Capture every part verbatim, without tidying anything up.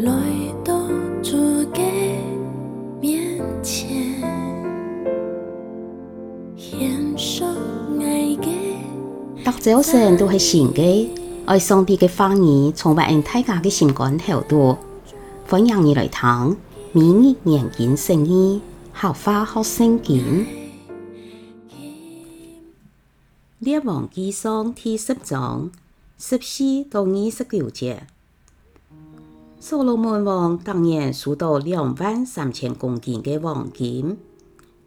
來到主个面前，獻上𠊎个。逐朝晨都係新个，愛上帝个話語充滿恩大家个心肝頭肚。歡迎你來聽每日研經釋義，客話學聖經。列王紀上第十章十四到二十九節。 所羅門王逐年收到兩萬三千公斤个黃金，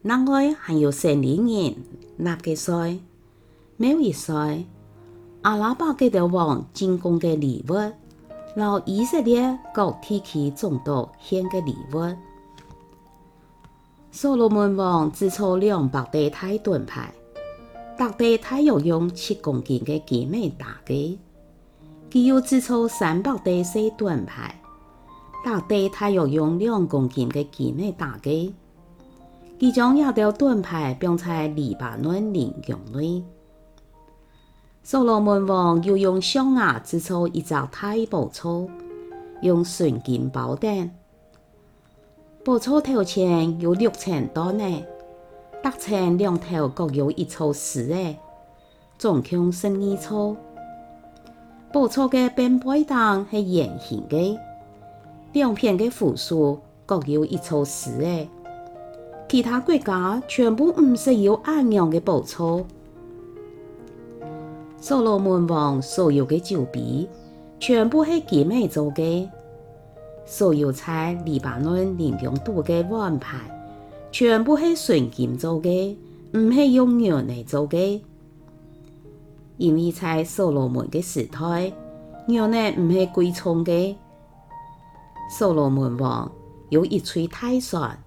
另外還有城裡人納个稅、貿易稅、阿拉伯各兜王進貢个禮物，摎以色列各地區總督獻个禮物。 所羅門王製造兩百對大盾牌，逐對大約用七公斤个金仔打个。佢又製造三百對細盾牌，逐對大約用兩公斤个金仔打个。佢將這兜盾牌放在黎巴嫩林宮內。所羅門王又用象牙製造一隻大寶座，用純金包等。 寶座頭前有六層凳仔，逐層兩頭各有一座司仔，總共十二座。寶座个半背頂係圓形个，兩片个扶手各有一座司仔。其他國家全部毋識有恁樣个寶座。所羅門王所有个酒杯全部係金仔做个， 所有在黎巴嫩林宮肚个碗盤，全部係純金做个，毋係用銀仔做个。因為在所羅門个時代，銀仔毋係貴重个。所羅門王有一隊大船，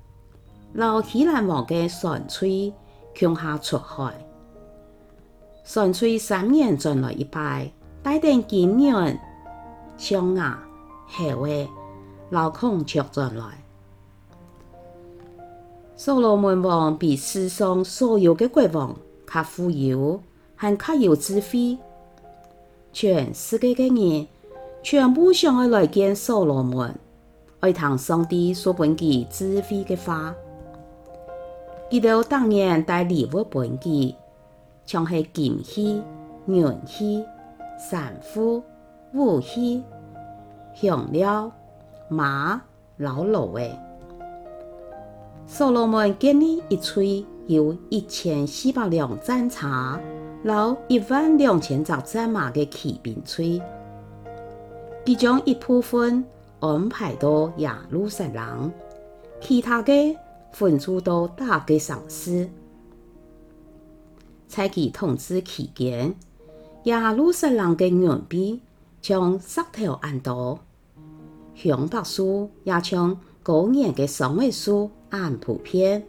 摎希蘭王个船隊共下出海。 船隊三年轉來一擺，帶等金銀、象牙、猴仔摎孔雀轉來。所羅門王比世上所有个國王較富有，還較有智慧。全世界个人全部想愛來見所羅門，愛聽上帝所分佢智慧个話。佢兜逐年帶禮物分佢， 像係金器、銀器、珊瑚、武器、香料、馬摎驢仔。所羅門建立一隊有一千四百輛戰車摎一萬兩千隻戰馬个騎兵隊。佢將一部分 安排到耶路撒冷，其他个分駐到逐个城市。在佢統治期間，耶路撒冷个銀幣像石頭恁多，香柏樹也像高原个桑仔樹恁普遍。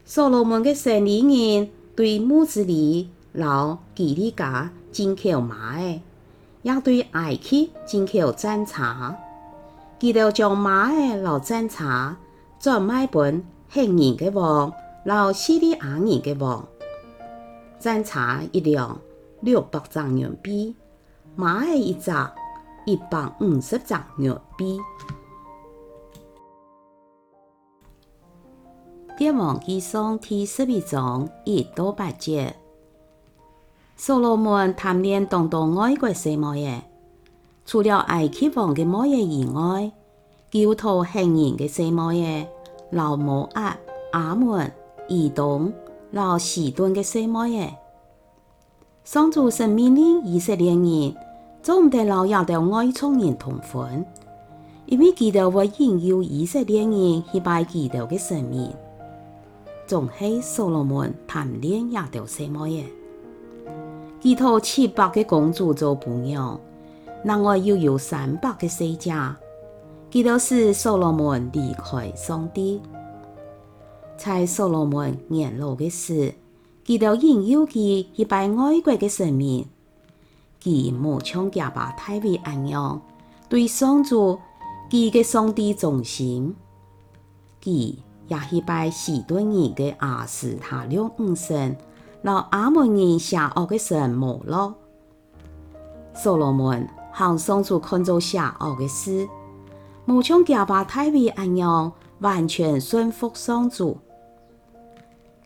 所羅門个生理人對慕斯利摎基利家進口馬仔， 也對埃及進口戰車。佢兜將馬仔摎戰車轉賣分赫人个王摎敘利亞人个王。戰車一輛六百隻銀幣，馬仔一隻一百五十隻銀幣。列王紀上第十一章一到八節。 所羅門貪戀當多外國細妹仔，除了埃及王个妹仔以外，佢又討赫人个細妹仔，摎摩押、亞捫、以東摎西頓个細妹仔。上主神命令以色列人，做毋得摎這兜外族人通婚， 因為佢兜會引誘以色列人去拜佢兜个神明。總係所羅門貪戀這兜細妹仔。佢討七百个公主做餔娘，另外又有三百个細姐。佢兜使所羅門離開上帝。在所羅門年老个時，佢兜引誘佢去拜外國个神明。 佢無像厥爸大衛恁樣，對上主，佢个上帝忠心。佢也去拜西頓人个亞斯他錄女神，摎亞捫人邪惡个神摩洛。所羅門行上主看做邪惡个事，無像厥爸大衛恁樣完全順服上主。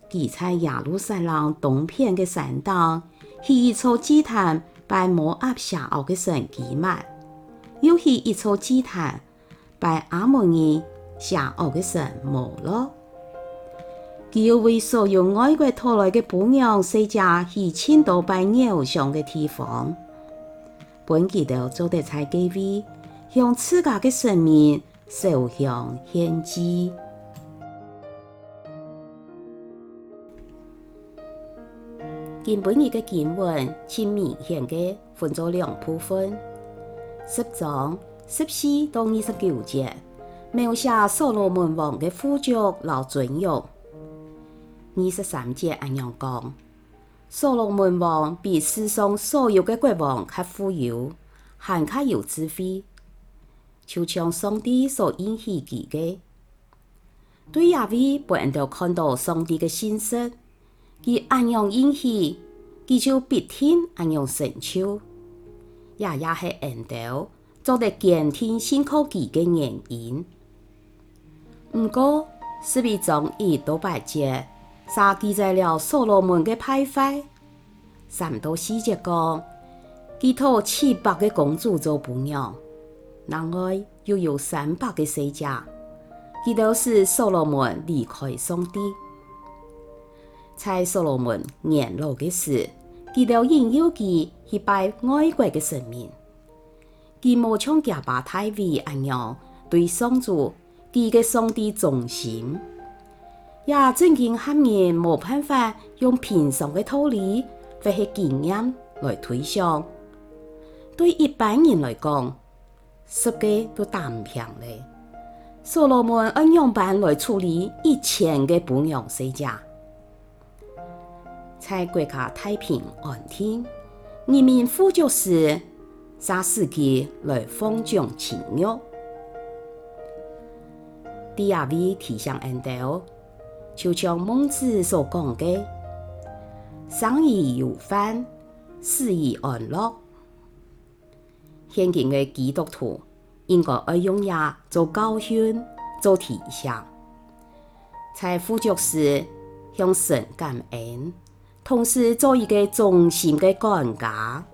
佢在耶路撒冷東片个山頂，起一座祭壇拜摩押邪惡个神基幔，又起一座祭壇拜亞捫人邪惡个神摩洛。佢又為所有外國討來个餔娘細姐起盡多拜偶像个地方，分佢兜做得在該位向自家个神明燒香獻祭。今晡日个經文盡明顯个分做兩部分。十章十四到二十九節，描寫所羅門王个富足摎尊榮。二十三節恁樣講：所羅門王比世上所有个國王較富有，還較有智慧，就像上帝所應許佢个。對這位分𠊎兜看到上帝个信實，佢恁樣應許，佢就必定恁樣成就。這也係𠊎兜做得堅定信靠佢个原因。毋過，十一章一到八節，嗄記載了所羅門个敗壞。三到四節講，佢討七百个公主做餔娘，另外又有三百个細姐，佢兜使所羅門離開上帝。在所羅門年老个時，佢兜引誘佢去拜外國个神明。佢無像厥爸大衛恁樣對上主，佢个上帝忠心。這正經喊人無辦法用平常个道理或係經驗來推想。對一般人來講，十个都打毋平咧。所羅門愛仰般來處理一千个餔娘細姐？在國家太平安定、人民富足時，嗄使佢來放縱情慾。第二位提醒𠊎兜，就像孟子所講个：「生而有飯，死而安樂。」 現今个基督徒應該愛用這做教訓、做提醒，在富足時向神感恩，同時做一個忠心个管家。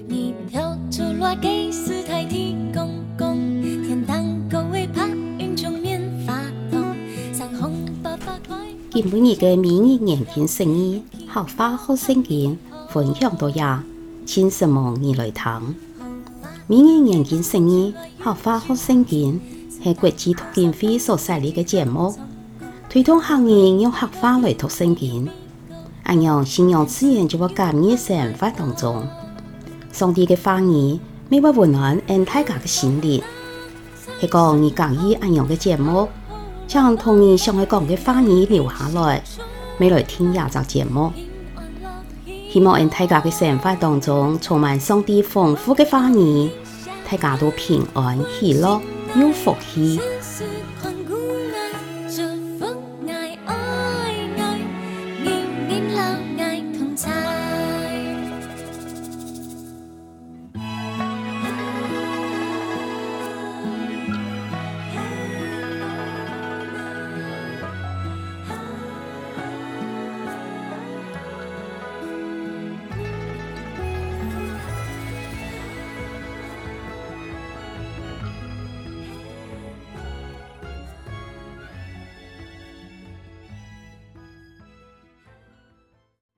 你跳出來給時代提供供，天堂口味怕雲中棉花糖，三紅八八快。今晡日个每日研經釋義， 客話學聖經，分享到這，請承蒙你來聽。每日研經釋義，客話學聖經，係國際讀經會所設立个節目，推動客人用客話來讀聖經。恁樣，信仰自然就會加入生活當中。上帝个話語，乜會溫暖𠊎大家个心靈。 係講你合意恁樣个節目，請同你想愛講个話語留下來，乜來聽這隻節目。希望𠊎大家个生活當中充滿上帝豐富个話語，大家都平安、喜樂、有福氣。